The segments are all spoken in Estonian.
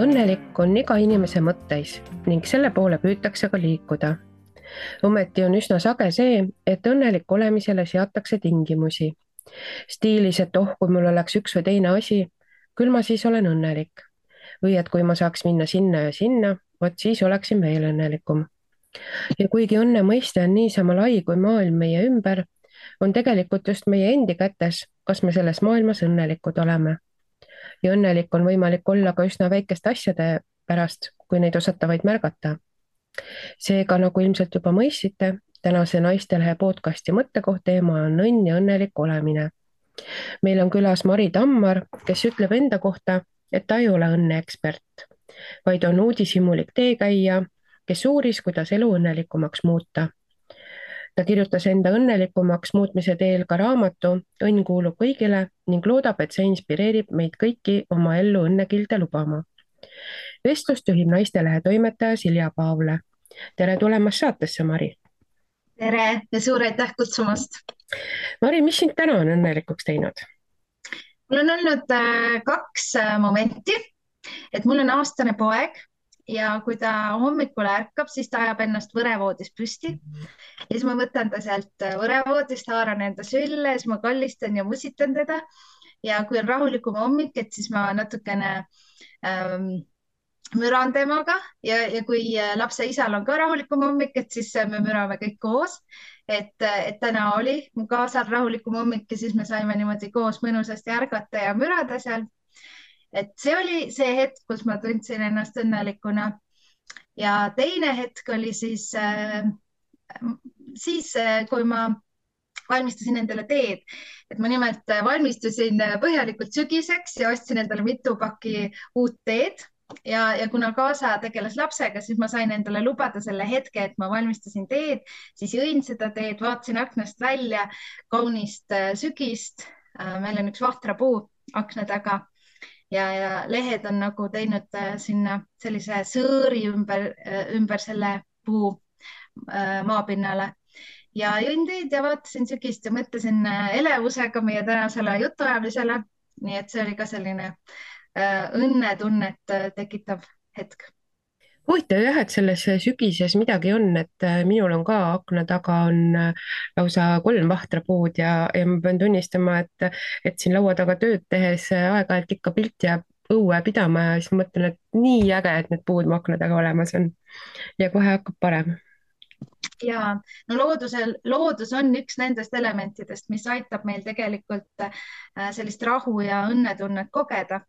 õnnelik on iga inimese mõtteis ning selle poole püütakse ka liikuda. Ometi on üsna sage see, et õnnelik olemisele seatakse tingimusi. Stiilis, et kui mul oleks üks või teine asi, küll ma siis olen õnnelik. Või et kui ma saaks minna sinna ja sinna, vot siis oleksin veel õnnelikum. Ja kuigi õnne mõiste on niisama lai kui maailm meie ümber, on tegelikult just meie endi kätes, kas me selles maailmas õnnelikud oleme. Ja õnnelik on võimalik olla ka üsna väikeste asjade pärast, kui neid osata vaid märgata. Seega, nagu ilmselt juba mõistsite, tänase Naistelehe podcasti mõttekoht teema on õnn ja õnnelik olemine. Meil on külas Mari Tammar, kes ütleb enda kohta, et ta ei ole õnneekspert, vaid on uudishimulik teekäija, kes uuris, kuidas elu õnnelikumaks muuta. Ta kirjutas enda õnnelikumaks muutmise teel ka raamatu Õnn kuulub kõigile ning loodab, et see inspireerib meid kõiki oma ellu õnnekilde lubama. Vestlust juhib Naistelehe toimetaja Silja Paavle. Tere tulemast saatesse, Mari. Tere ja suur aitäh kutsumast. Mari, mis sind täna on õnnelikuks teinud? Mul on olnud kaks momenti, et mul on aastane poeg ja kui ta hommikul ärkab, siis ta ajab ennast võrevoodis püsti ja siis ma võtan ta sealt võrevoodist, haaran enda sülle, siis ma kallistan ja musitan teda ja kui on rahulikum hommik, et siis ma natukene müran temaga ja kui lapse isal on ka rahulikum hommik, et siis me mürame kõik koos. Et täna oli mu kaasal rahulikum hommik ja siis me saime niimoodi koos mõnusasti ärgata ja mürada seal. Et see oli see hetk, kus ma tundsin ennast õnnelikuna. Ja teine hetk oli siis, kui ma valmistasin endale teed. Et ma nimelt valmistusin põhjalikult sügiseks ja ostsin endale mitu pakki uut teed. Ja kuna kaasa tegeles lapsega, siis ma sain endale lubada selle hetke, et ma valmistasin teed, siis jõin seda teed, vaatasin aknast välja kaunist sügist. Meil on üks vahtrapuu akna taga ja lehed on nagu teinud sinna sellise sõõri ümber selle puu maapinnale. Ja jõin teed ja vaatasin sügist ja mõtlesin elevusega meie tänasele jutuajamisele. Nii et see oli ka selline õnnetunnet tekitav hetk. Huvitav jah, et selles sügises midagi on, et minul on ka akna taga on lausa 3 vahtrapuud ja ma pean tunnistama, et siin laua taga tööd tehes aeg-ajalt ikka pilt jääb õue pidama ja siis mõtlen, et nii äge, et need puud mu akna taga olemas on ja kohe hakkab parem. Ja no loodus on üks nendest elementidest, mis aitab meil tegelikult sellist rahu ja õnnetunnet kogeda.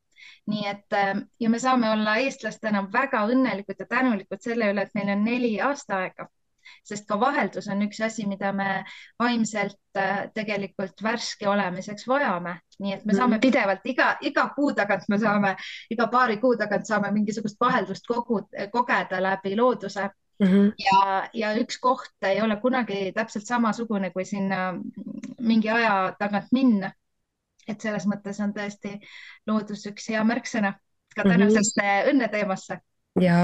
Nii et ja me saame olla eestlastena väga õnnelikud ja tänulikud selle üle, et meil on 4 aastaaega, sest ka vaheldus on üks asi, mida me vaimselt tegelikult värske olemiseks vajame. Nii et me saame pidevalt iga kuu tagant, iga paari kuu tagant saame mingisugust vaheldust kogeda läbi looduse. Ja üks koht ei ole kunagi täpselt samasugune, kui sinna mingi aja tagant minna. Et selles mõttes on tõesti loodus üks hea märksõna ka tänasesse õnneteemasse. Ja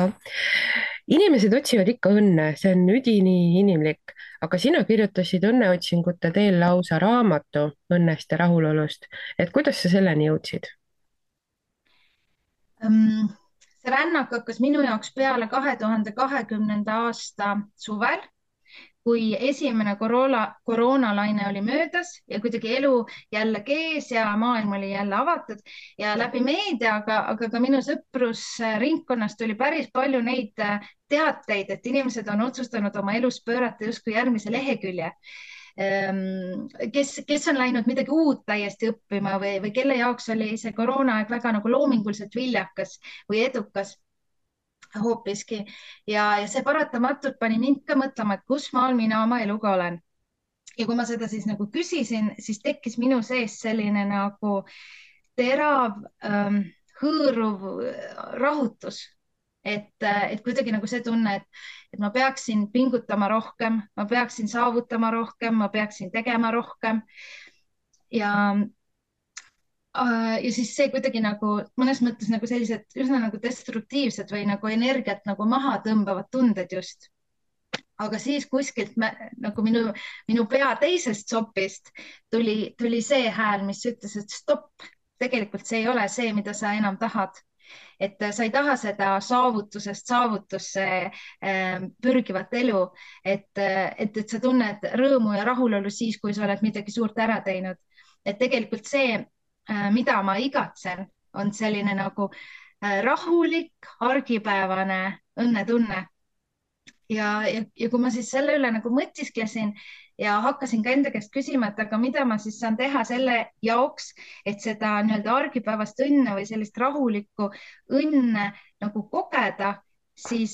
inimesed otsivad ikka õnne, see on üdini inimlik, aga sina kirjutasid õnneotsingute teel lausa raamatu õnnest ja rahulolust. Et kuidas sa selleni jõudsid? See rännak hakkas minu jaoks peale 2020. aasta suvel, kui esimene koroonalaine oli möödas ja kuidagi elu jälle kees ja maailm oli jälle avatud ja läbi meedia, aga ka minu sõprusringkonnast tuli päris palju neid teateid, et inimesed on otsustanud oma elus pöörata justkui järgmise lehekülje. Kes on läinud midagi uut täiesti õppima või kelle jaoks oli see koroonaaeg väga nagu loominguliselt viljakas või edukas hoopiski ja see paratamatult pani mind ka mõtlema, et kus maal mina oma eluga olen. Ja kui ma seda siis nagu küsisin, siis tekkis minu sees selline nagu terav, hõõruv rahutus. Et kuidagi nagu see tunne, et ma peaksin pingutama rohkem, ma peaksin saavutama rohkem, ma peaksin tegema rohkem. Ja siis see kuidagi nagu mõnes mõttes nagu sellised üsna nagu destruktiivsed või nagu energiat nagu maha tõmbavad tunded just. Aga siis kuskilt nagu minu pea teisest sopist tuli see hääl, mis ütles, et stopp, tegelikult see ei ole see, mida sa enam tahad. et sa ei taha seda saavutusest saavutusse pürgivat elu, et sa tunned rõõmu ja rahulolu siis, kui sa oled midagi suurt ära teinud. et tegelikult see, mida ma igatsen, on selline nagu rahulik, argipäevane õnnetunne. Ja kui ma siis selle üle nagu mõtisklesin ja hakkasin ka enda käest küsima, et aga mida ma siis saan teha selle jaoks, et seda nii-öelda argipäevast õnne või sellist rahulikku õnne nagu kogeda, siis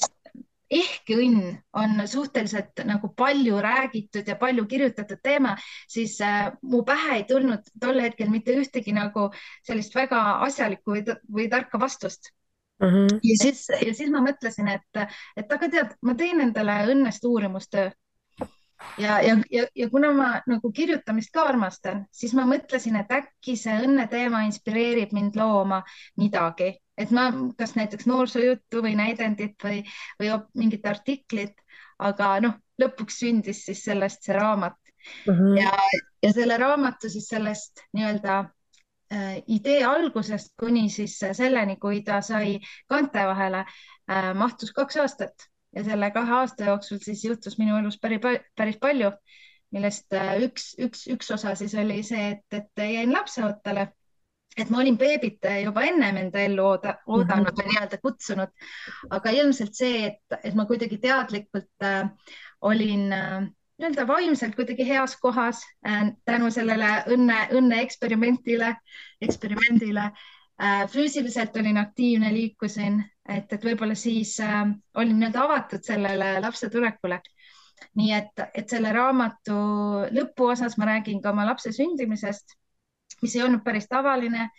ehkki õnn on suhteliselt nagu palju räägitud ja palju kirjutatud teema, siis mu pähe ei tulnud tol hetkel mitte ühtegi nagu sellist väga asjalikku või tarka vastust. uh -huh. Ja siis ma mõtlesin, et aga tead, ma teen endale õnnest uurimustöö. Ja kuna ma nagu kirjutamist ka armastan, siis ma mõtlesin, et äkki see õnne teema inspireerib mind looma midagi, et ma kas näiteks noorsoojuttu või näidendit või mingit artiklit, aga noh, lõpuks sündis siis sellest see raamat. Uh -huh. Ja selle raamatu siis sellest nii-öelda idee algusest kuni siis selleni, kui ta sai kaante vahele, mahtus 2 aastat ja selle 2 aasta jooksul siis juhtus minu elus päris palju, millest üks osa siis oli see, et jäin lapseootele, et ma olin beebit juba ennem enda ellu oodanud või nii-öelda kutsunud, aga ilmselt see, et ma kuidagi teadlikult olin nii-öelda vaimselt kuidagi heas kohas tänu sellele õnne eksperimendile. Füüsiliselt olin aktiivne, liikusin, et võib-olla siis olin nii-öelda avatud sellele lapse tulekule. Nii et selle raamatu lõpuosas ma räägin ka oma lapse sündimisest, mis ei olnud päris tavaline,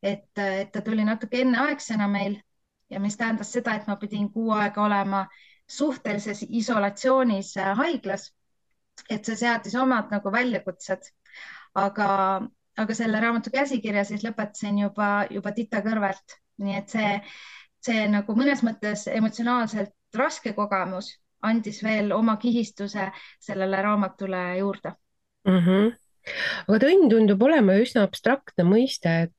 et ta tuli natuke enneaegsena meil ja mis tähendas seda, et ma pidin 6 aega olema suhtelises isolatsioonis haiglas. Et see seadis omad nagu väljakutsed, aga selle raamatu käsikirja siis lõpetasin juba tita kõrvalt. Nii et see nagu mõnes mõttes emotsionaalselt raske kogemus andis veel oma kihistuse sellele raamatule juurde. Uh -huh. Aga õnn tundub olema üsna abstraktne mõiste,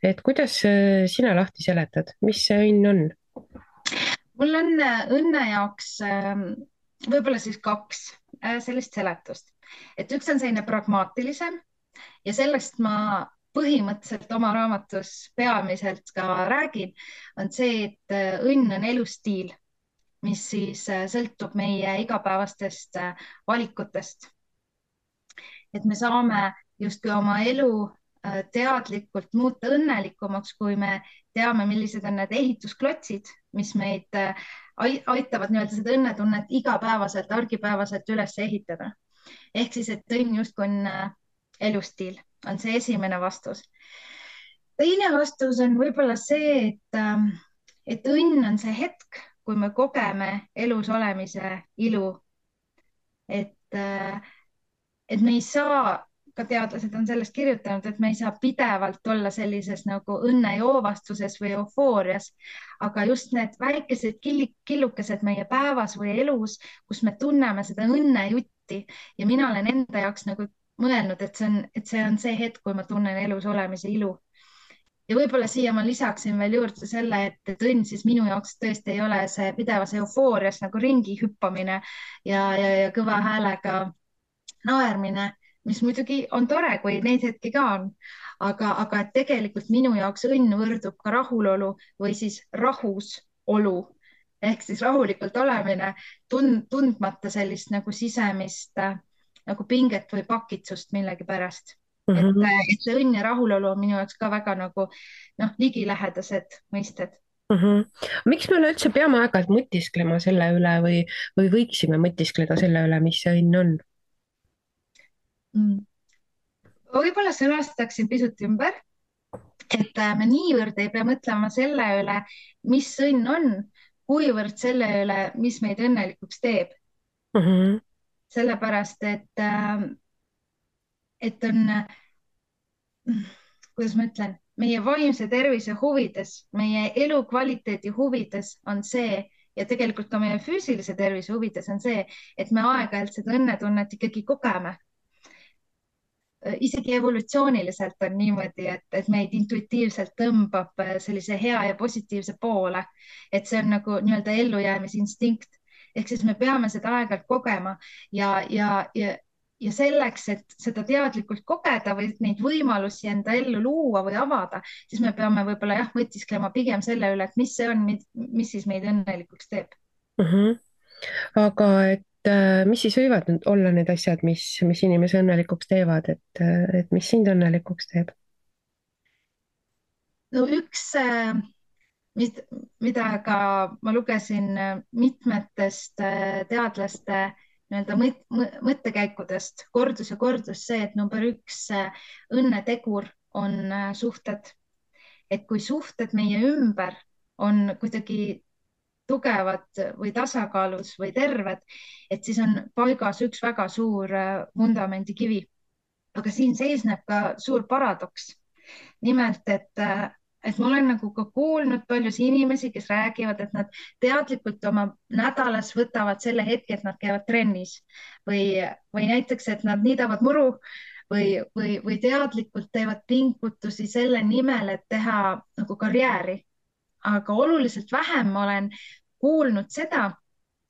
et kuidas sina lahti seletad, mis see õnn on? Mul on õnne jaoks võib-olla siis 2 sellist seletust, et üks on selline pragmaatilisem ja sellest ma põhimõtteliselt oma raamatus peamiselt ka räägin, on see, et õnn on elustiil, mis siis sõltub meie igapäevastest valikutest. Et me saame justkui oma elu teadlikult muuta õnnelikumaks, kui me teame, millised on need ehitusklotsid, mis meid aitavad nii-öelda seda õnnetunnet igapäevaselt, argipäevaselt üles ehitada. Ehk siis, et õnn justkui on elustiil, on see esimene vastus. Teine vastus on võib-olla see, et õnn on see hetk, kui me kogeme elus olemise ilu. Et me ei saa, ka teadlased on sellest kirjutanud, et me ei saa pidevalt olla sellises nagu õnnejoovastuses või eufoorias, aga just need väikesed killukesed meie päevas või elus, kus me tunneme seda õnnejutti ja mina olen enda jaoks nagu mõelnud, et see on see hetk, kui ma tunnen elus olemise ilu. Ja võib-olla siia ma lisaksin veel juurde selle, et õnn siis minu jaoks tõesti ei ole see pidevas eufoorias nagu ringi hüppamine ja kõva häälega naermine, mis muidugi on tore, kui neid hetki ka on, aga et tegelikult minu jaoks õnn võrdub ka rahulolu või siis rahusolu ehk siis rahulikult olemine, tundmata sellist nagu sisemist nagu pinget või pakitsust millegi pärast. Et see õnn ja rahulolu on minu jaoks ka väga nagu ligilähedased mõisted. Miks me üleüldse peame aeg-ajalt mõtisklema selle üle või võiksime mõtiskleda selle üle, mis see õnn on? Võib-olla sõnastaksin pisut ümber, et me niivõrd ei pea mõtlema selle üle, mis õnn on, kuivõrd selle üle, mis meid õnnelikuks teeb. Sellepärast, et on, kuidas ma ütlen, meie vaimse tervise huvides, meie elukvaliteedi huvides on see ja tegelikult ka meie füüsilise tervise huvides on see, et me aeg-ajalt seda õnnetunnet ikkagi kogeme. isegi evolutsiooniliselt on niimoodi, et meid intuitiivselt tõmbab sellise hea ja positiivse poole, et see on nagu nii-öelda ellujäämisinstinkt. Ehk siis me peame seda aeg-ajalt kogema ja selleks, et seda teadlikult kogeda või neid võimalusi enda ellu luua või avada, siis me peame võib-olla jah, mõtisklema pigem selle üle, et mis see on, mis siis meid õnnelikuks teeb. Mhm. Aga et mis siis võivad nüüd olla need asjad, mis inimese õnnelikuks teevad, et mis sind õnnelikuks teeb? No üks, mida ka ma lugesin mitmetest teadlaste nii-öelda mõttekäikudest, kordus ja kordus see, et number üks õnnetegur on suhted. Et kui suhted meie ümber on kuidagi tugevad või tasakaalus või terved, et siis on paigas üks väga suur vundamendikivi. Aga siin seisneb ka suur paradoks. Nimelt, et ma olen nagu ka kuulnud paljusid inimesi, kes räägivad, et nad teadlikult oma nädalas võtavad selle hetke, et nad käivad trennis või näiteks, et nad niidavad muru või teadlikult teevad pingutusi selle nimel, et teha nagu karjääri. Aga oluliselt vähem ma olen kuulnud seda,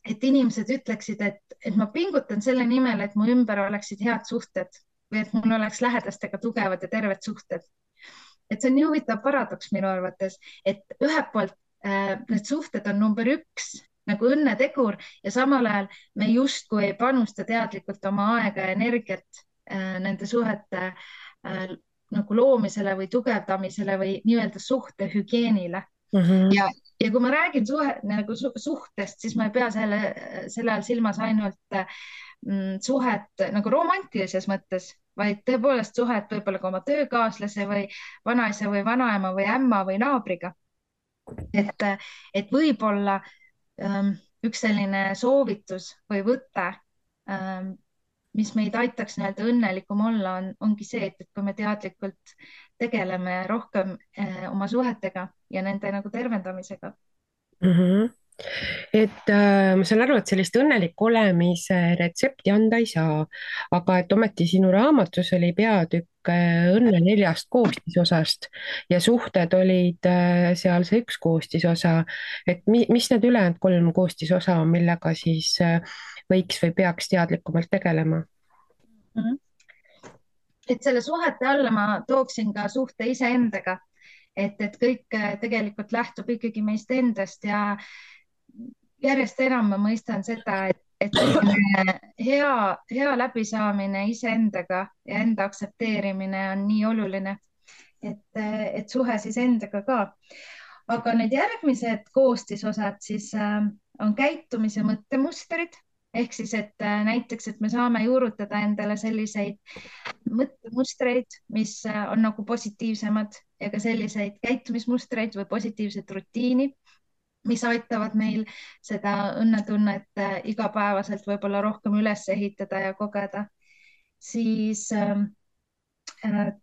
et inimesed ütleksid, et ma pingutan selle nimel, et mu ümber oleksid head suhted või et mul oleks lähedastega tugevad ja terved suhted. Et see on nii huvitav paradoks minu arvates, et ühelt poolt need suhted on number üks nagu õnnetegur ja samal ajal me justkui ei panusta teadlikult oma aega ja energiat nende suhete nagu loomisele või tugevdamisele või nii-öelda suhtehügieenile. Ja kui ma räägin nagu suhtest, siis ma ei pea selle all silmas ainult suhet nagu romantilises mõttes, vaid tõepoolest suhet võib-olla ka oma töökaaslase või vanaisa või vanaema või ämma või naabriga. Et võib-olla üks selline soovitus või võte, mis meid aitaks nii-öelda õnnelikum olla, ongi see, et kui me teadlikult tegeleme rohkem oma suhetega ja nende nagu tervendamisega. Et ma saan aru, et sellist õnneliku olemise retsepti anda ei saa, aga et ometi sinu raamatus oli peatükk õnne 4 koostisosast ja suhted olid seal see üks koostisosa. Et mis need ülejäänud 3 koostisosa on, millega siis võiks või peaks teadlikumalt tegelema? Et selle suhete alla ma tooksin ka suhte iseendaga, et kõik tegelikult lähtub ikkagi meist endast ja järjest enam ma mõistan seda, et hea läbisaamine iseendaga ja enda aktsepteerimine on nii oluline, et suhe siis endaga ka. Aga need järgmised koostisosad siis on käitumis- ja mõttemustrid. Ehk siis, et näiteks, et me saame juurutada endale selliseid mõttemustreid, mis on nagu positiivsemad ja ka selliseid käitumismustreid või positiivset rutiini, mis aitavad meil seda õnnetunnet igapäevaselt võib-olla rohkem üles ehitada ja kogeda. Siis 3.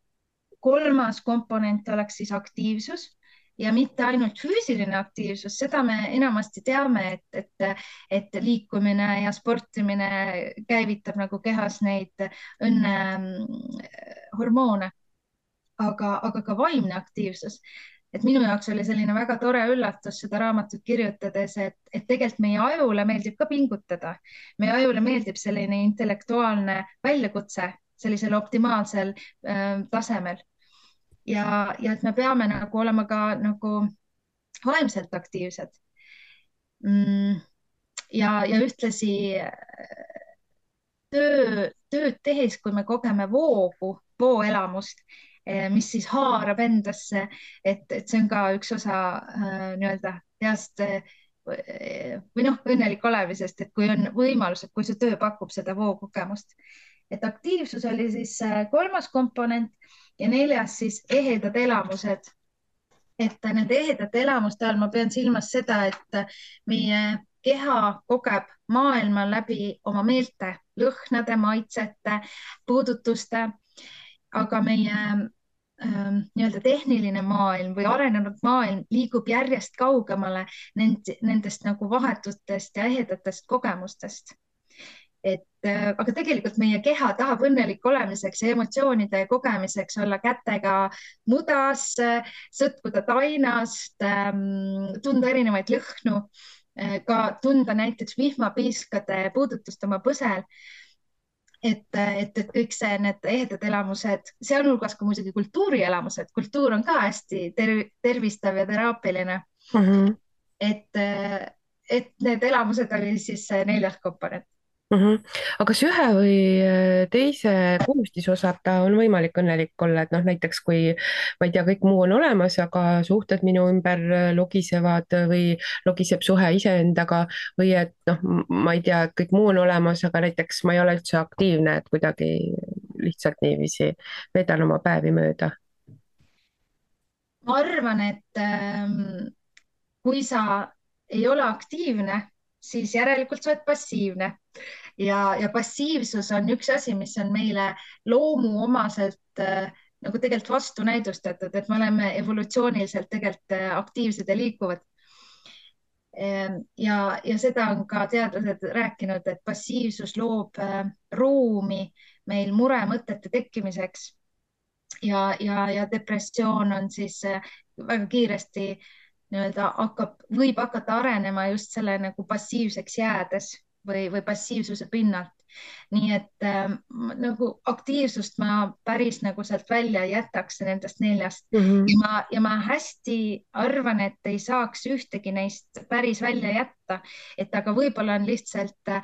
komponent oleks siis aktiivsus ja mitte ainult füüsiline aktiivsus, seda me enamasti teame, et liikumine ja sportimine käivitab nagu kehas neid õnnehormoone, aga ka vaimne aktiivsus. Et minu jaoks oli selline väga tore üllatus seda raamatut kirjutades, et tegelikult meie ajule meeldib ka pingutada. Meie ajule meeldib selline intellektuaalne väljakutse sellisel optimaalsel tasemel. Ja et me peame nagu olema ka nagu vaimselt aktiivsed. Ja ühtlasi tööd tehes, kui me kogeme vooelamust, mis siis haarab endasse, et see on ka üks osa nii-öelda heast või õnnelik olemisest, et kui on võimalus, et kui see töö pakub seda vookogemust. Et aktiivsus oli siis 3. komponent ja 4. siis ehedad elamused. Et nende ehedate elamuste all ma pean silmas seda, et meie keha kogeb maailma läbi oma meelte, lõhnade, maitsete, puudutuste, aga meie nii-öelda tehniline maailm või arenenud maailm liigub järjest kaugemale nendest nagu vahetutest ja ehedatest kogemustest. aga tegelikult meie keha tahab õnnelik olemiseks ja emotsioonide kogemiseks olla kätega mudas, sõtkuda tainast, tunda erinevaid lõhnu, ka tunda näiteks vihmapiiskade puudutust oma põsel. Et kõik see, need ehedad elamused, sealhulgas ka muidugi kultuurielamused, kultuur on ka hästi tervistav ja teraapiline. Et need elamused oli siis see 4. komponent. Aga kas ühe või teise koostisosa ta on võimalik õnnelik olla, et noh, näiteks kui ma ei tea, kõik muu on olemas, aga suhted minu ümber logisevad või logiseb suhe iseendaga või et noh, ma ei tea, et kõik muu on olemas, aga näiteks ma ei ole üldse aktiivne, et kuidagi lihtsalt niiviisi veedan oma päevi mööda. Ma arvan, et kui sa ei ole aktiivne, siis järelikult sa oled passiivne ja passiivsus on üks asi, mis on meile loomuomaselt nagu tegelikult vastunäidustatud, et me oleme evolutsiooniliselt tegelikult aktiivsed ja liikuvad. Ja seda on ka teadlased rääkinud, et passiivsus loob ruumi meil muremõtete tekkimiseks ja depressioon on siis väga kiiresti võib hakata arenema just selle nagu passiivseks jäädes või passiivsuse pinnalt. Nii et nagu aktiivsust ma päris nagu sealt välja ei jätaks nendest 4. Ja ma hästi arvan, et ei saaks ühtegi neist päris välja jätta, et aga võib-olla on lihtsalt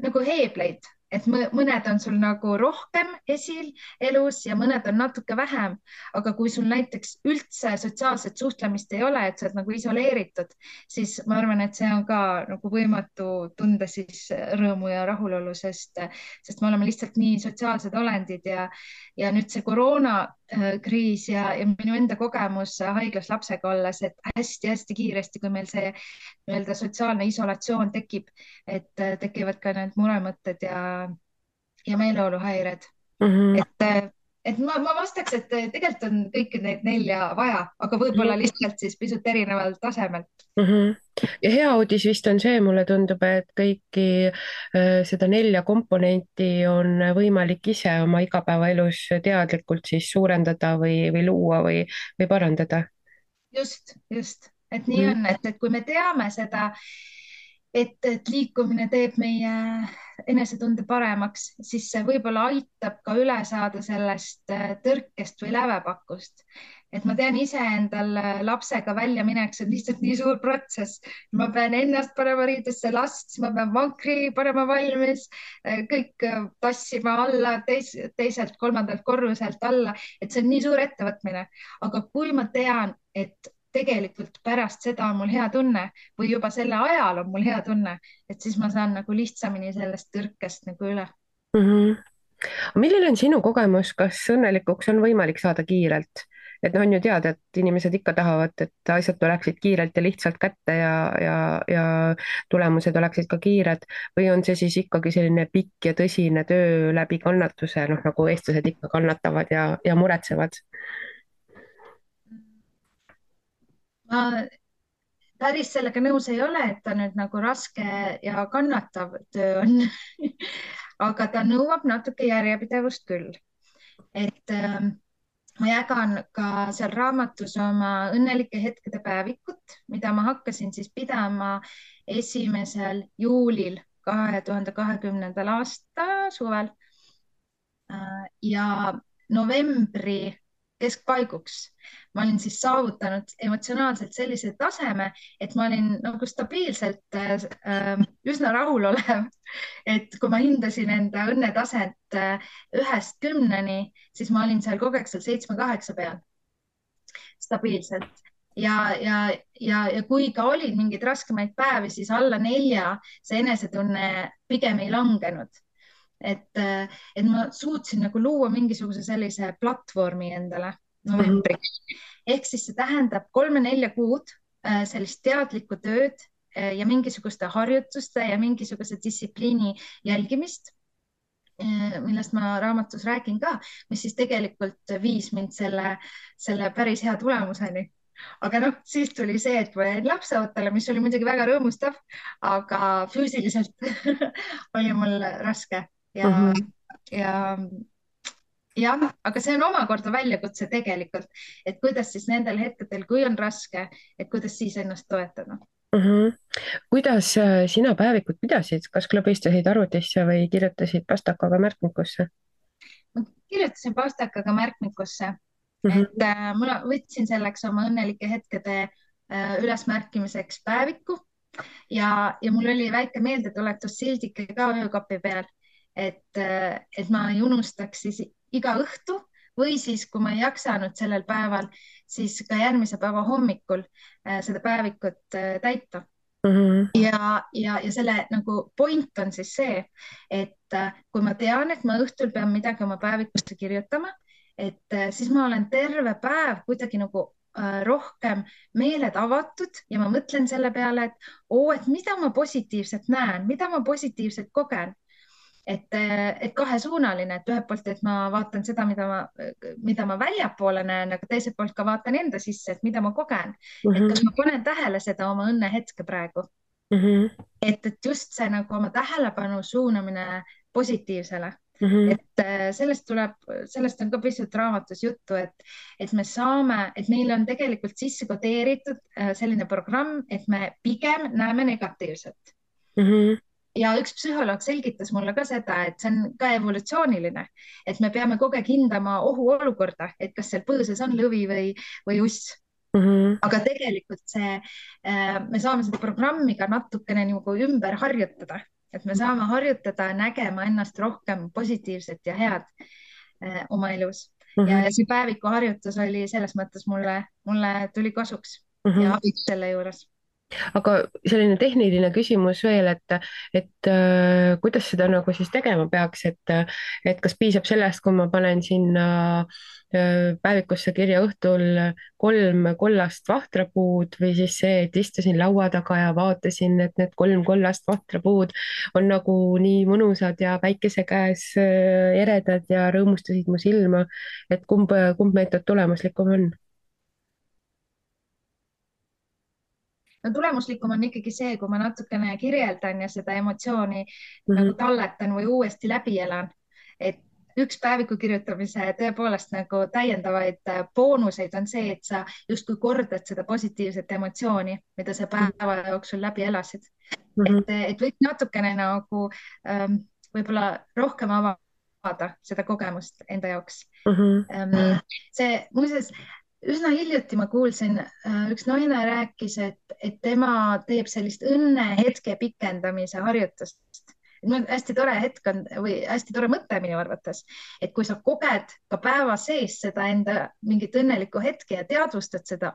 nagu heebleid, et mõned on sul nagu rohkem esil elus ja mõned on natuke vähem, aga kui sul näiteks üldse sotsiaalset suhtlemist ei ole, et sa oled nagu isoleeritud, siis ma arvan, et see on ka nagu võimatu tunda siis rõõmu ja rahulolu, sest me oleme lihtsalt nii sotsiaalsed olendid ja nüüd see koroonakriis ja minu enda kogemus haiglas lapsega olles, et hästi-hästi kiiresti, kui meil see nii-öelda sotsiaalne isolatsioon tekib, et tekivad ka need muremõtted ja meeleoluhäired. Et ma vastaks, et tegelikult on kõiki neid 4 vaja, aga võib-olla lihtsalt siis pisut erineval tasemel. Ja hea uudis vist on see, mulle tundub, et kõiki seda 4 komponenti on võimalik ise oma igapäevaelus teadlikult siis suurendada või luua või parandada. Just, et nii on, et kui me teame seda, et liikumine teeb meie enesetunde paremaks, siis see võib-olla aitab ka üle saada sellest tõrkest või lävepakust. Et ma tean ise endal lapsega välja minek, see on lihtsalt nii suur protsess. Ma pean ennast panema riidesse, last, ma pean vankri panema valmis, kõik tassima alla teiselt, 3. korruselt alla, et see on nii suur ettevõtmine. Aga kui ma tean, et tegelikult pärast seda on mul hea tunne või juba selle ajal on mul hea tunne, et siis ma saan nagu lihtsamini sellest tõrkest nagu üle. Milline on sinu kogemus, kas õnnelikuks on võimalik saada kiirelt? Et on ju teada, et inimesed ikka tahavad, et asjad tuleksid kiirelt ja lihtsalt kätte ja tulemused oleksid ka kiired või on see siis ikkagi selline pikk ja tõsine töö läbi kannatuse, noh nagu eestlased ikka kannatavad ja muretsevad? Ma päris sellega nõus ei ole, et ta nüüd nagu raske ja kannatav töö on aga ta nõuab natuke järjepidevust küll. Et ma jagan ka seal raamatus oma õnnelike hetkede päevikut, mida ma hakkasin siis pidama 1. juulil 2020. aasta suvel ja novembri keskpaiguks ma olin siis saavutanud emotsionaalselt sellise taseme, et ma olin nagu stabiilselt üsna rahulolev. Et kui ma hindasin enda õnnetaset 1-st 10-ni, siis ma olin seal kogu aeg seal 7-8 peal stabiilselt. Ja kui ka olid mingeid raskemaid päevi, siis alla 4 see enesetunne pigem ei langenud. Et ma suutsin nagu luua mingisuguse sellise platvormi endale novembriks. Ehk siis see tähendab 3-4 kuud sellist teadlikku tööd ja mingisuguste harjutuste ja mingisuguse distsipliini jälgimist, millest ma raamatus räägin ka, mis siis tegelikult viis mind selle päris hea tulemuseni. aga noh, siis tuli see, et ma jäin lapseootele, mis oli muidugi väga rõõmustav, aga füüsiliselt oli mul raske ja, Mhm. ja jah, aga see on omakorda väljakutse tegelikult, et kuidas siis nendel hetkedel, kui on raske, et kuidas siis ennast toetada. Mhm. Kuidas sina päevikut pidasid, kas klõbistasid arvutisse või kirjutasid pastakaga märkmikusse? Ma kirjutasin pastakaga märkmikusse, Mhm. et ma võtsin selleks oma õnnelike hetkede ülesmärkimiseks päeviku ja mul oli väike meeldetuletus sildike ka öökapi peal, et ma ei unustaks siis iga õhtu või siis, kui ma ei jaksanud sellel päeval, siis ka järgmise päeva hommikul seda päevikut täita. Mhm. Ja selle nagu point on siis see, et kui ma tean, et ma õhtul pean midagi oma päevikusse kirjutama, et siis ma olen terve päev kuidagi nagu rohkem meeled avatud ja ma mõtlen selle peale, et mida ma positiivset näen, mida ma positiivselt kogen. Et kahesuunaline, et ühelt poolt, et ma vaatan seda, mida ma väljapoole näen, aga teiselt poolt ka vaatan enda sisse, et mida ma kogen. Et Mhm. kas ma panen tähele seda oma õnnehetke praegu, Mhm. et just see nagu oma tähelepanu suunamine positiivsele. Mhm. Et sellest on ka pisut raamatus juttu, et me saame, et meil on tegelikult sisse kodeeritud selline programm, et me pigem näeme negatiivset. Mhm. Ja üks psühholoog selgitas mulle ka seda, et see on ka evolutsiooniline, et me peame kogu aeg hindama ohuolukorda, et kas seal põõsas on lõvi või uss. Mhm. Aga tegelikult me saame seda programmi ka natukene nagu ümber harjutada, et me saame harjutada nägema ennast rohkem positiivset ja head oma elus. Ja Mhm. see päevikuharjutus oli selles mõttes mulle tuli kasuks Mhm. ja abiks selle juures. aga selline tehniline küsimus veel, et kuidas seda nagu siis tegema peaks, et kas piisab sellest, kui ma panen sinna päevikusse kirja õhtul 3 kollast vahtrapuud või siis see, et istusin laua taga ja vaatasin, et need 3 kollast vahtrapuud on nagu nii mõnusad ja päikese käes eredad ja rõõmustasid mu silma, et kumb meetod tulemuslikum on? No tulemuslikum on ikkagi see, kui ma natukene kirjeldan ja seda emotsiooni Mhm. nagu talletan või uuesti läbi elan. Et üks päeviku kirjutamise tõepoolest nagu täiendavaid boonuseid on see, et sa justkui kordad seda positiivset emotsiooni, mida sa päeva jooksul läbi elasid. Mhm. Et võiks natukene nagu võib-olla rohkem avada seda kogemust enda jaoks. Mhm. See muuseas, üsna hiljuti ma kuulsin, üks naine rääkis, et tema teeb sellist õnnehetke pikendamise harjutust. Hästi tore hetk on või hästi tore mõte minu arvates, et kui sa koged ka päeva sees seda enda mingit õnnelikku hetke ja teadvustad seda,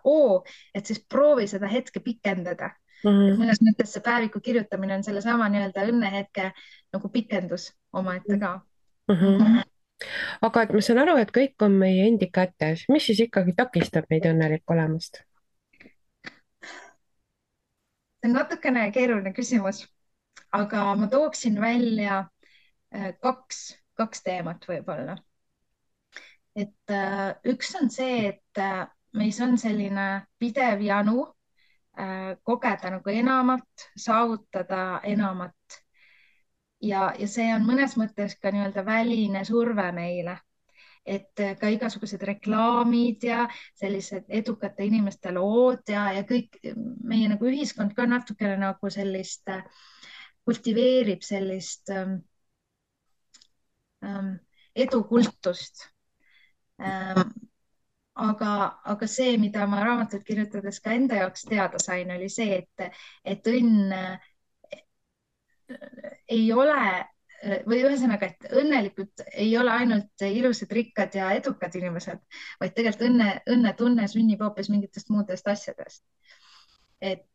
et siis proovi seda hetke pikendada. Et Mhm. mõnes mõttes see päeviku kirjutamine on sellesama nii-öelda õnnehetke nagu pikendus omaette ka. Mhm. aga et ma saan aru, et kõik on meie endi kätes, mis siis ikkagi takistab meid õnnelik olemast? See on natukene keeruline küsimus, aga ma tooksin välja kaks teemat võib-olla. Et üks on see, et meis on selline pidev janu kogeda nagu enamat, saavutada enamat. Ja see on mõnes mõttes ka nii-öelda väline surve meile, et ka igasugused reklaamid ja sellised edukate inimeste lood ja kõik meie nagu ühiskond ka natukene nagu sellist kultiveerib sellist edukultust. Aga see, mida ma raamatut kirjutades ka enda jaoks teada sain, oli see, et õnn ei ole või ühesõnaga, et õnnelikud ei ole ainult ilusad, rikkad ja edukad inimesed, vaid tegelikult õnnetunne sünnib hoopis mingitest muudest asjadest. et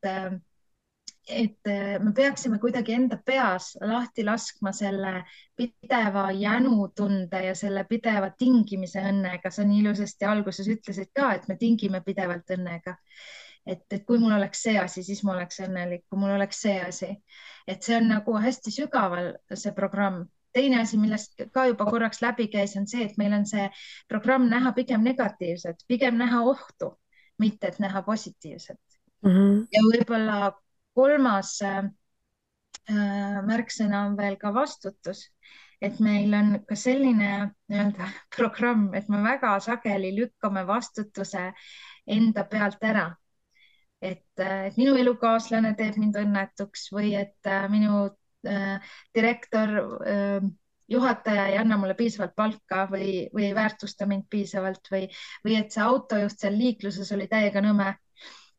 me peaksime kuidagi enda peas lahti laskma selle pideva jänutunde ja selle pideva tingimise õnnega. Sa nii ilusasti alguses ütlesid ka, et me tingime pidevalt õnnega. Et kui mul oleks see asi, siis ma oleks õnnelik, kui mul oleks see asi. Et see on nagu hästi sügaval see programm. Teine asi, millest ka juba korraks läbi käis, on see, et meil on see programm näha pigem negatiivset, pigem näha ohtu. mitte et näha positiivset. Mhm. Ja võib-olla kolmas märksõna on veel ka vastutus, et meil on ka selline nii-öelda programm, et me väga sageli lükkame vastutuse enda pealt ära. Et minu elukaaslane teeb mind õnnetuks või et minu direktor, juhataja ei anna mulle piisavalt palka või ei väärtusta mind piisavalt või et see autojuht seal liikluses oli täiega nõme.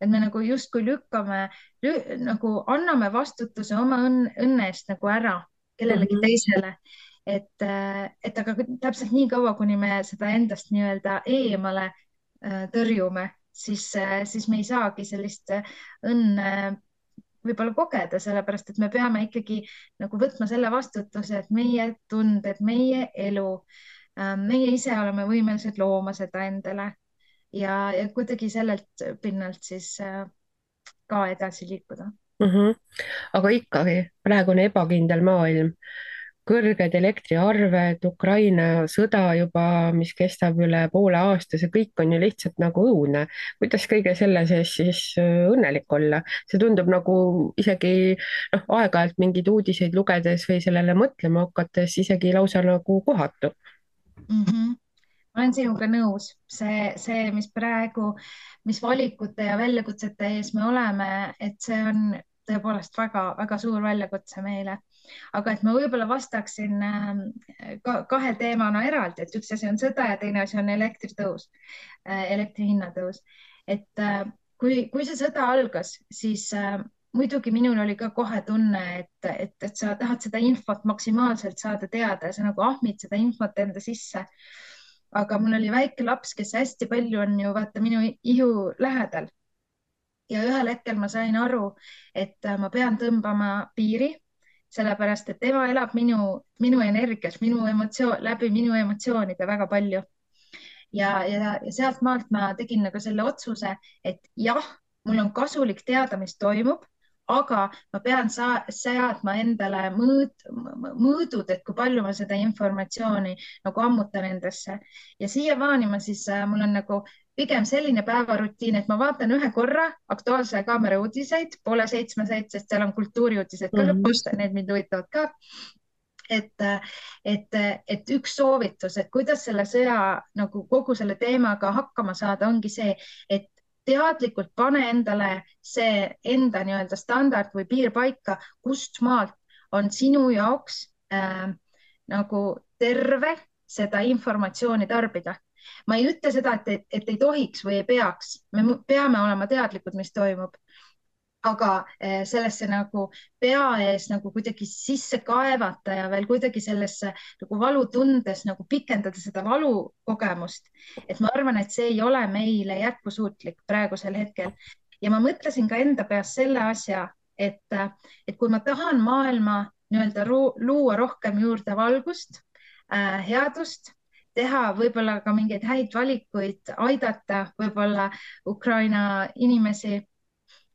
Et me nagu justkui lükkame, nagu anname vastutuse oma õnne eest nagu ära kellelegi Mhm. teisele. Et aga täpselt nii kaua, kuni me seda endast nii-öelda eemale tõrjume, siis me ei saagi sellist õnne võib-olla kogeda, sellepärast et me peame ikkagi nagu võtma selle vastutuse, et meie tunded, meie elu, meie ise oleme võimelised looma seda endale ja kuidagi sellelt pinnalt siis ka edasi liikuda. Mhm. Aga ikkagi praegune ebakindel maailm, kõrged elektriarved, Ukraina sõda juba, mis kestab üle poole aasta, see kõik on ju lihtsalt nagu õudne. kuidas kõige selle sees siis õnnelik olla? See tundub nagu isegi noh, aeg-ajalt mingeid uudiseid lugedes või sellele mõtlema hakates isegi lausa nagu kohatu. Mm -hmm. Ma olen sinuga nõus, mis praegu, mis valikute ja väljakutsete ees me oleme, et see on tõepoolest väga-väga suur väljakutse meile. Aga et ma võib-olla vastaksin kahe teemana eraldi, et üks asi on sõda ja teine asi on elektritõus, elektri hinna tõus. Kui see sõda algas, siis muidugi minul oli ka kohe tunne, et sa tahad seda infot maksimaalselt saada teada ja sa nagu ahmid seda infot enda sisse. Aga mul oli väike laps, kes hästi palju on ju vaata minu ihu lähedal. Ja ühel hetkel ma sain aru, et ma pean tõmbama piiri, sellepärast et tema elab minu energias, läbi minu emotsioonide väga palju. Ja sealt maalt ma tegin nagu selle otsuse, et jah, mul on kasulik teada, mis toimub, aga ma pean seadma endale mõõdud, et kui palju ma seda informatsiooni nagu ammutan endasse. Ja siiamaani mul on nagu pigem selline päevarutiin, et ma vaatan ühe korra Aktuaalse Kaamera uudiseid, 6:30, sest seal on kultuuriuudised ka lõpus, need mind huvitavad ka. Et üks soovitus, et kuidas selle sõja nagu kogu selle teemaga hakkama saada, ongi see, et teadlikult pane endale see enda nii-öelda standard või piir paika, kust maalt on sinu jaoks nagu terve seda informatsiooni tarbida. Ma ei ütle seda, et ei tohiks või ei peaks, me peame olema teadlikud, mis toimub. Aga sellesse nagu pea ees nagu kuidagi sisse kaevata ja veel kuidagi sellesse nagu valutundes nagu pikendada seda valukogemust. Et ma arvan, et see ei ole meile jätkusuutlik praegusel hetkel. Ja ma mõtlesin ka enda peas selle asja, et kui ma tahan maailma nii-öelda luua rohkem juurde valgust, headust, teha võib-olla ka mingeid häid valikuid, aidata võib-olla Ukraina inimesi,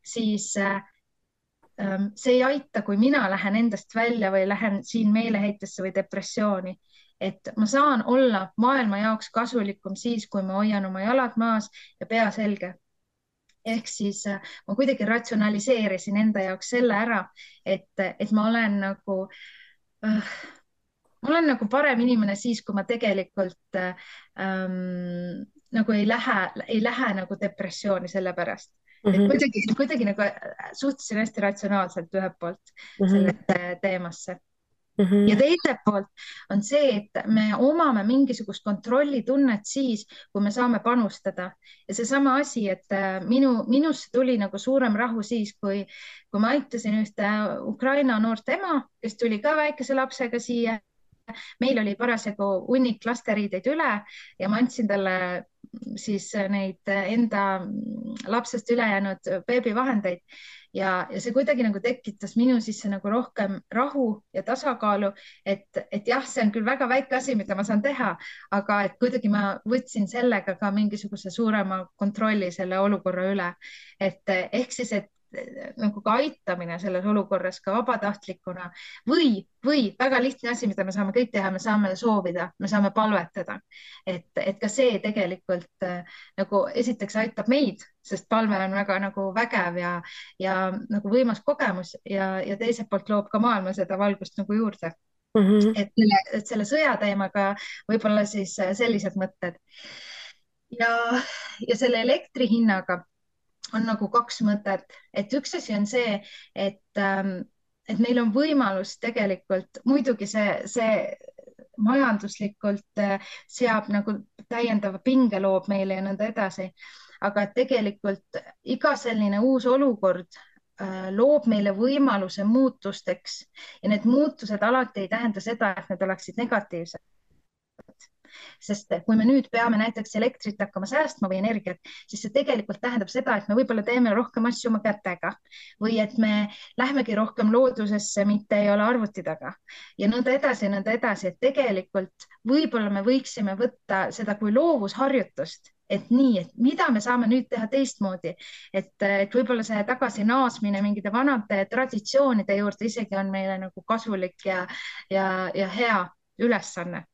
siis see ei aita, kui mina lähen endast välja või lähen siin meeleheitesse või depressiooni. Et ma saan olla maailma jaoks kasulikum siis, kui ma hoian oma jalad maas ja pea selge. Ehk siis ma kuidagi ratsionaliseerisin enda jaoks selle ära, et ma olen nagu parem inimene siis, kui ma tegelikult nagu ei lähe nagu depressiooni selle pärast. Et kuidagi nagu suhtusin hästi ratsionaalselt ühelt poolt sellesse teemasse. Ja teiselt poolt on see, et me omame mingisugust kontrollitunnet siis, kui me saame panustada. Ja seesama asi, et minusse tuli nagu suurem rahu siis, kui ma aitasin ühte Ukraina noort ema, kes tuli ka väikese lapsega siia. Meil oli parasjagu hunnik lasteriideid üle ja ma andsin talle siis neid enda lapsest ülejäänud beebivahendeid ja see kuidagi nagu tekitas minu sisse nagu rohkem rahu ja tasakaalu, et jah, see on küll väga väike asi, mida ma saan teha, aga et kuidagi ma võtsin sellega ka mingisuguse suurema kontrolli selle olukorra üle. Et ehk siis, et nagu ka aitamine selles olukorras ka vabatahtlikuna või väga lihtne asi, mida me saame kõik teha, me saame soovida, me saame palvetada. et ka see tegelikult nagu esiteks aitab meid, sest palve on väga nagu vägev ja nagu võimas kogemus ja teiselt poolt loob ka maailma seda valgust nagu juurde. Mhm. Et selle sõja teemaga võib-olla siis sellised mõtted ja, ja selle elektri hinnaga on nagu kaks mõtet, et üks asi on see, et meil on võimalus tegelikult, muidugi see majanduslikult seab nagu täiendava pinge loob meile ja nõnda edasi, aga et tegelikult iga selline uus olukord loob meile võimaluse muutusteks ja need muutused alati ei tähenda seda, et need oleksid negatiivsed. Sest kui me nüüd peame näiteks elektrit hakkama säästma või energiat, siis see tegelikult tähendab seda, et me võib-olla teeme rohkem asju oma kätega või et me lähmegi rohkem loodusesse, mitte ei ole arvuti taga ja nõnda edasi, et tegelikult võib-olla me võiksime võtta seda kui loovusharjutust, et nii, et mida me saame nüüd teha teistmoodi, et võib-olla see tagasi naasmine mingite vanade traditsioonide juurde isegi on meile nagu kasulik ja hea ülesanne.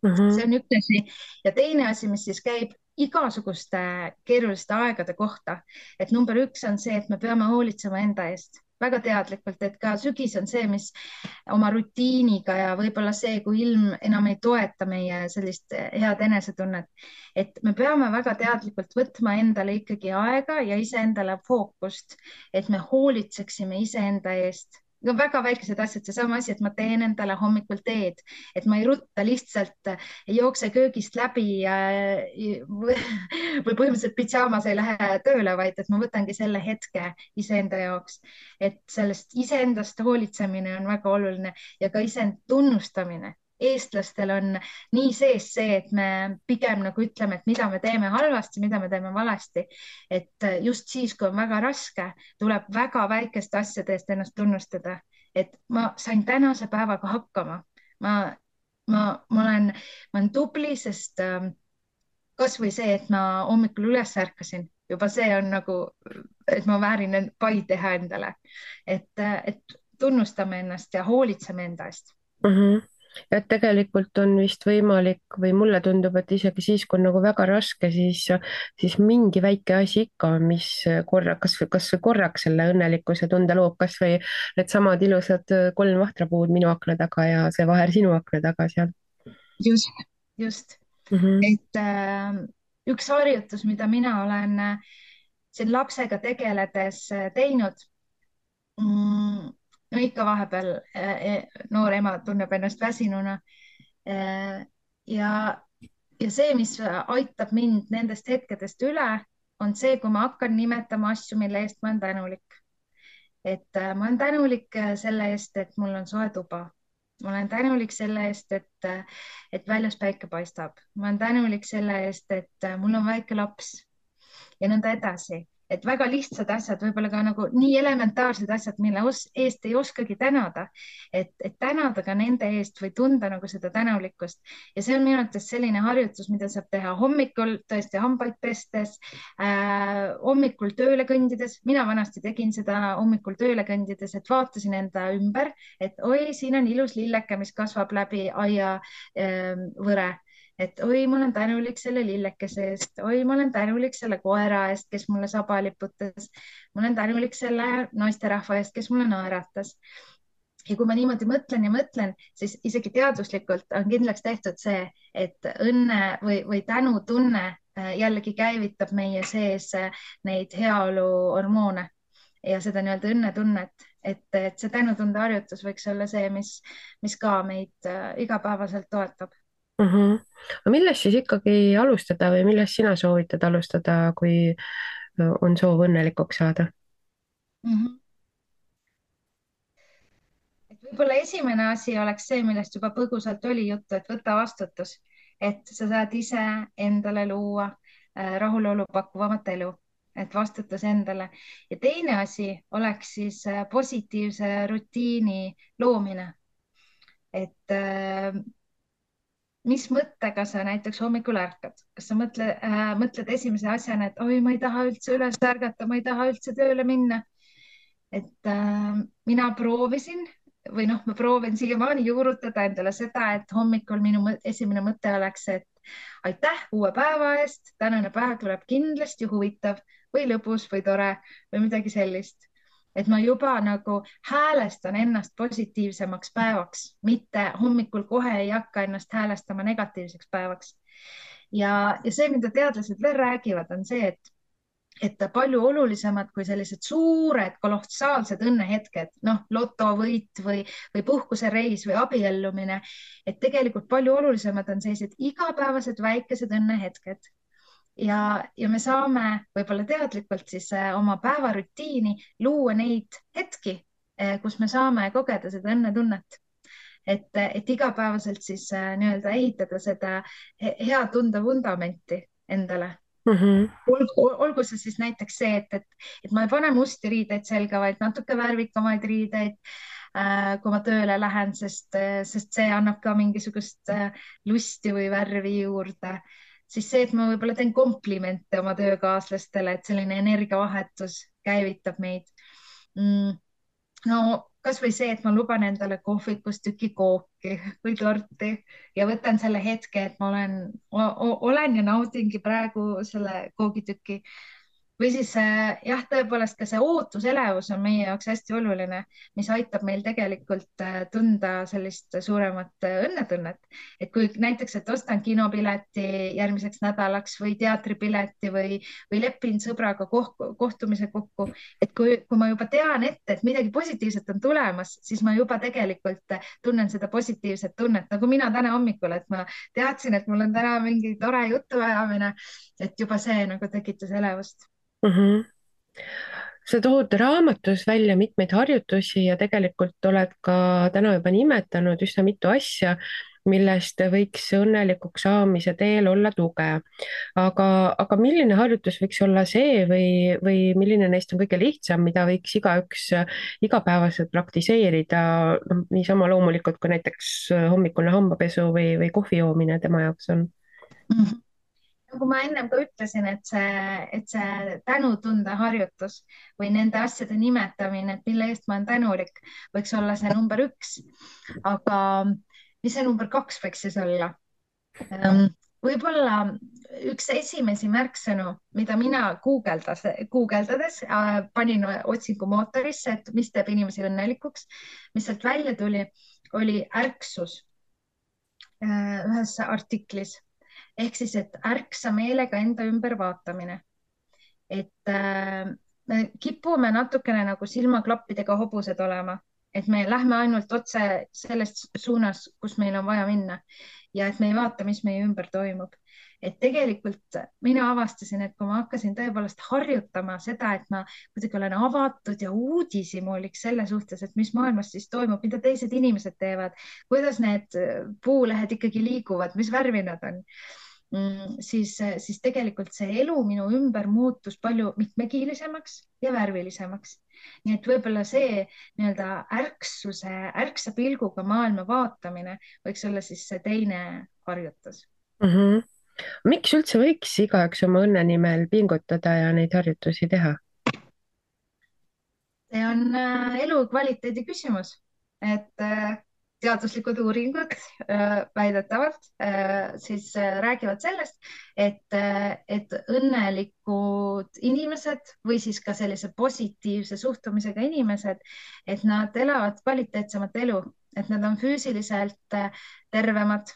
See on üks asi ja teine asi, mis siis käib igasuguste keeruliste aegade kohta, et number üks on see, et me peame hoolitsema enda eest väga teadlikult, et ka sügis on see, mis oma rutiiniga ja võib-olla see, kui ilm enam ei toeta meie sellist head enesetunnet, et me peame väga teadlikult võtma endale ikkagi aega ja iseendale fookust, et me hoolitseksime iseenda eest. Väga väikesed asjad, seesama asi, et ma teen endale hommikul teed, et ma ei rutta lihtsalt, ei jookse köögist läbi või põhimõtteliselt pidžaamas ei lähe tööle, vaid et ma võtangi selle hetke iseenda jaoks, et sellest iseendast hoolitsemine on väga oluline ja ka iseend tunnustamine. Eestlastel on nii sees see, et me pigem nagu ütleme, et mida me teeme halvasti, mida me teeme valesti, et just siis, kui on väga raske, tuleb väga väikeste asjade eest ennast tunnustada, et ma sain tänase päevaga hakkama. Ma olen tubli, sest kasvõi see, et ma hommikul üles ärkasin, juba see on nagu, et ma väärin pai teha endale, et tunnustame ennast ja hoolitseme enda eest. Et tegelikult on vist võimalik või mulle tundub, et isegi siis, kui on nagu väga raske, siis mingi väike asi ikka on, mis kas või korraks selle õnnelikkuse tunde loob, kas või needsamad ilusad 3 vahtrapuud minu akna taga ja see vaher sinu akna taga seal. Just. Et üks harjutus, mida mina olen siin lapsega tegeledes teinud, no ikka vahepeal noor ema tunneb ennast väsinuna. Ja see, mis aitab mind nendest hetkedest üle, on see, kui ma hakkan nimetama asju, mille eest ma olen tänulik. Et ma olen tänulik selle eest, et mul on soe tuba. Ma olen tänulik selle eest, et väljas päike paistab. Ma olen tänulik selle eest, et mul on väike laps ja nõnda edasi. Et väga lihtsad asjad, võib-olla ka nagu nii elementaarsed asjad, mille eest ei oskagi tänada, et tänada ka nende eest või tunda nagu seda tänulikkust. Ja see on minu arvates selline harjutus, mida saab teha hommikul, tõesti hambaid pestes, hommikul tööle kõndides. Mina vanasti tegin seda hommikul tööle kõndides, et vaatasin enda ümber, et oi, siin on ilus lilleke, mis kasvab läbi aia võre. Et oi, ma olen tänulik selle lillekese eest, oi, ma olen tänulik selle koera eest, kes mulle saba liputas, ma olen tänulik selle naisterahva eest, kes mulle naeratas. Ja kui ma niimoodi mõtlen ja mõtlen, siis isegi teaduslikult on kindlaks tehtud see, et õnne või tänutunne jällegi käivitab meie sees neid heaoluhormoone ja seda nii-öelda õnnetunnet, et see tänutunde harjutus võiks olla see, mis ka meid igapäevaselt toetab. Aga millest siis ikkagi alustada või millest sina soovitad alustada, kui on soov õnnelikuks saada? Et võib-olla esimene asi oleks see, millest juba põgusalt oli juttu, et võta vastutus, et sa saad ise endale luua rahulolu pakkuvamat elu, et vastutus endale. Ja teine asi oleks siis positiivse rutiini loomine, et mis mõttega sa näiteks hommikul ärkad, kas sa mõtled esimese asjana, et oi, ma ei taha üldse üles ärgata, ma ei taha üldse tööle minna et mina proovisin või noh, ma proovin siiamaani juurutada endale seda, et hommikul minu esimene mõte oleks, et aitäh uue päeva eest, tänane päev tuleb kindlasti huvitav või lõbus või tore või midagi sellist. Et ma juba nagu häälestan ennast positiivsemaks päevaks, mitte hommikul kohe ei hakka ennast häälestama negatiivseks päevaks. Ja see, mida teadlased veel räägivad, on see, et palju olulisemad kui sellised suured kolossaalsed õnnehetked, noh, lotovõit või puhkusereis või abiellumine, et tegelikult palju olulisemad on sellised igapäevased väikesed õnnehetked. Ja me saame võib-olla teadlikult siis oma päevarutiini luua neid hetki, kus me saame kogeda seda õnnetunnet. Et igapäevaselt siis nii-öelda ehitada seda hea tunde vundamenti endale. Olgu see siis näiteks see, et ma ei pane musti riideid selga, vaid natuke värvikamaid riideid, kui ma tööle lähen, sest see annab ka mingisugust lusti või värvi juurde. Siis see, et ma võib-olla teen komplimente oma töökaaslastele, et selline energiavahetus käivitab meid. No kasvõi see, et ma luban endale kohvikus tüki kooki või torti ja võtan selle hetke, et ma olen ja naudingi praegu selle koogitüki. Või siis jah, tõepoolest ka see ootuselevus on meie jaoks hästi oluline, mis aitab meil tegelikult tunda sellist suuremat õnnetunnet. Et kui näiteks, et ostan kinopileti järgmiseks nädalaks või teatripileti või lepin sõbraga kohtumise kokku, et kui ma juba tean ette, et midagi positiivset on tulemas, siis ma juba tegelikult tunnen seda positiivset tunnet, nagu mina täna hommikul, et ma teadsin, et mul on täna mingi tore jutuajamine, et juba see nagu tekitas elevust. Sa tood raamatus välja mitmeid harjutusi ja tegelikult oled ka täna juba nimetanud üsna mitu asja, millest võiks õnnelikuks saamise teel olla tuge. aga milline harjutus võiks olla see või milline neist on kõige lihtsam, mida võiks igaüks igapäevaselt praktiseerida, noh, niisama loomulikult kui näiteks hommikune hambapesu või kohvi joomine tema jaoks on? Nagu ma ennem ka ütlesin, et see tänutunde harjutus või nende asjade nimetamine, et mille eest ma olen tänulik, võiks olla see number 1. Aga mis see number 2 võiks siis olla? Võib-olla üks esimesi märksõnu, mida mina guugeldades panin otsingumootorisse, et mis teeb inimesi õnnelikuks, mis sealt välja tuli, oli ärksus ühes artiklis. Ehk siis, et ärksa meelega enda ümber vaatamine. Et me kipume natukene nagu silmaklappidega hobused olema, et me lähme ainult otse selles suunas, kus meil on vaja minna ja et me ei vaata, mis meie ümber toimub. Et tegelikult mina avastasin, et kui ma hakkasin tõepoolest harjutama seda, et ma kuidagi olen avatud ja uudishimulik selle suhtes, et mis maailmas siis toimub, mida teised inimesed teevad, kuidas need puulehed ikkagi liiguvad, mis värvi nad on, siis tegelikult see elu minu ümber muutus palju mitmekiilisemaks ja värvilisemaks. Nii et võib-olla see nii-öelda ärksa pilguga maailma vaatamine võiks olla siis see teine harjutus. Miks üldse võiks igaüks oma õnne nimel pingutada ja neid harjutusi teha? See on elukvaliteedi küsimus, et teaduslikud uuringud väidetavalt siis räägivad sellest, et õnnelikud inimesed või siis ka sellise positiivse suhtumisega inimesed, et nad elavad kvaliteetsemat elu, et nad on füüsiliselt tervemad.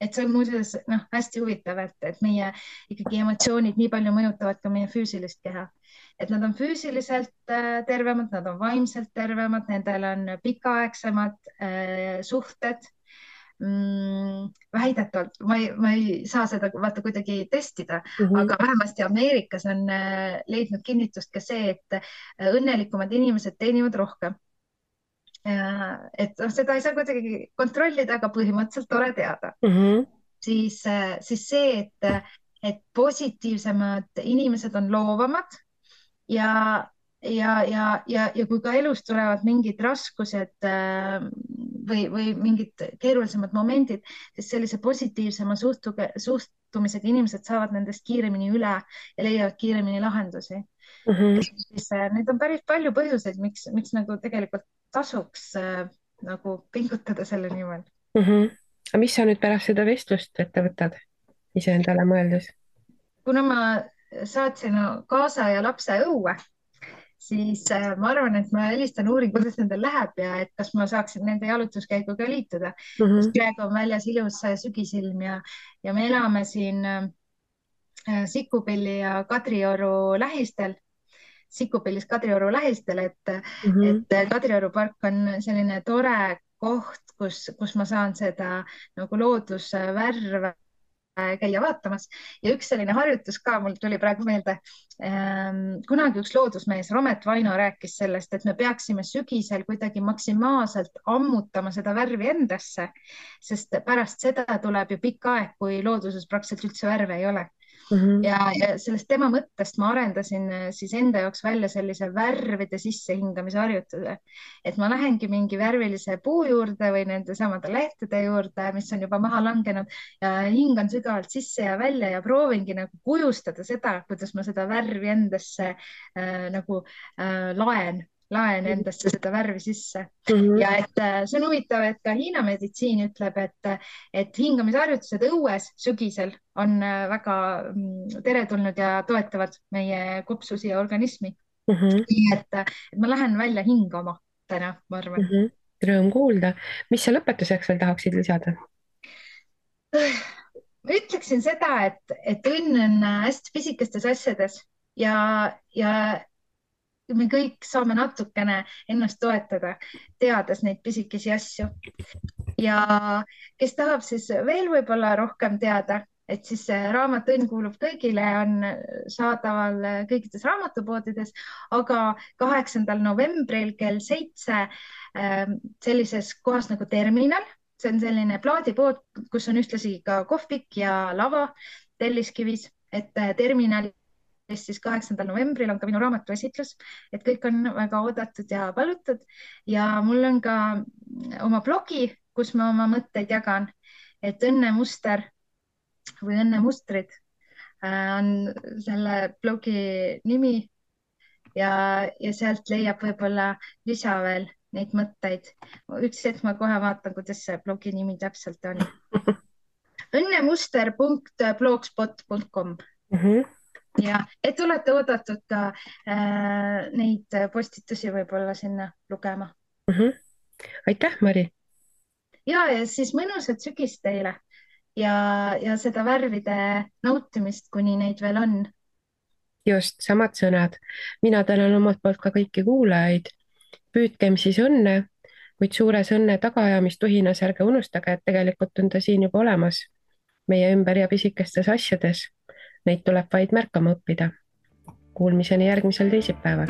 Et see on muuseas hästi huvitav, et meie ikkagi emotsioonid nii palju mõjutavad ka meie füüsilist keha. Et nad on füüsiliselt tervemad, nad on vaimselt tervemad, nendel on pikaaegsemad suhted. Väidetavalt, ma ei saa seda vaata kuidagi testida, aga vähemasti Ameerikas on leidnud kinnitust ka see, et õnnelikumad inimesed teenivad rohkem. Et seda ei saa kuidagi kontrollida, aga põhimõtteliselt tore teada. Siis see, et positiivsemad inimesed on loovamad ja kui ka elus tulevad mingid raskused või mingid keerulisemad momendid, siis sellise positiivsema suhtumisega inimesed saavad nendest kiiremini üle ja leiavad kiiremini lahendusi. siis neid on päris palju põhjuseid, miks nagu tegelikult tasuks nagu pingutada selle nimel. aga mis sa nüüd pärast seda vestlust ette võtad, iseendale mõeldes? kuna ma saatsin kaasa ja lapse õue, siis ma arvan, et ma helistan, uurin, kuidas nendel läheb ja et kas ma saaksin nende jalutuskäiguga liituda, sest praegu on väljas ilus sügisilm ja me elame siin Sikkupilli ja Kadrioru lähistel, Sikkupillis Kadrioru lähistel, et Kadrioru park on selline tore koht, kus ma saan seda nagu loodusvärve käia vaatamas ja üks selline harjutus ka mul tuli praegu meelde. Kunagi üks loodusmees, Romet Vaino, rääkis sellest, et me peaksime sügisel kuidagi maksimaalselt ammutama seda värvi endasse, sest pärast seda tuleb ju pikk aeg, kui looduses praktiliselt üldse värve ei ole. Ja sellest tema mõttest ma arendasin siis enda jaoks välja sellise värvide sissehingamise harjutuse, et ma lähengi mingi värvilise puu juurde või nende samade lehtede juurde, mis on juba maha langenud ja hingan sügavalt sisse ja välja ja proovingi nagu kujustada seda, kuidas ma seda värvi endasse laen endasse seda värvi sisse. Ja et see on huvitav, et ka Hiina meditsiin ütleb, et hingamisharjutused õues sügisel on väga teretulnud ja toetavad meie kopsusi ja organismi. Nii et ma lähen välja hingama täna, ma arvan. Rõõm kuulda. Mis sa lõpetuseks veel tahaksid lisada? Ma ütleksin seda, et õnn on hästi pisikestes asjades ja me kõik saame natukene ennast toetada, teades neid pisikesi asju. Ja kes tahab siis veel võib-olla rohkem teada, et siis raamat Õnn kuulub kõigile on saadaval kõikides raamatupoodides, aga 8. novembril kell 7 sellises kohas nagu Terminal, see on selline plaadipood, kus on ühtlasi ka kohvik ja lava Telliskivis, et Terminal siis 8. novembril on ka minu raamatu esitlus, et kõik on väga oodatud ja palutud ja mul on ka oma blogi, kus ma oma mõtteid jagan, et Õnnemuster või Õnnemustrid on selle blogi nimi ja sealt leiab võib-olla lisa veel neid mõtteid. Üks hetk ma kohe vaatan, kuidas see blogi nimi täpselt on. õnnemuster.blogspot.com ja et olete oodatud ka neid postitusi võib-olla sinna lugema. Aitäh, Mari! Ja siis mõnusat sügist teile ja seda värvide nautimist, kuni neid veel on. Just, samad sõnad. Mina tänan omalt poolt ka kõiki kuulajaid. Püüdkem siis õnne, kuid suures õnne tagaajamistuhinas ärge unustage, et tegelikult on ta siin juba olemas meie ümber ja pisikestes asjades. Neid tuleb vaid märkama õppida. Kuulmiseni järgmisel teisipäeval.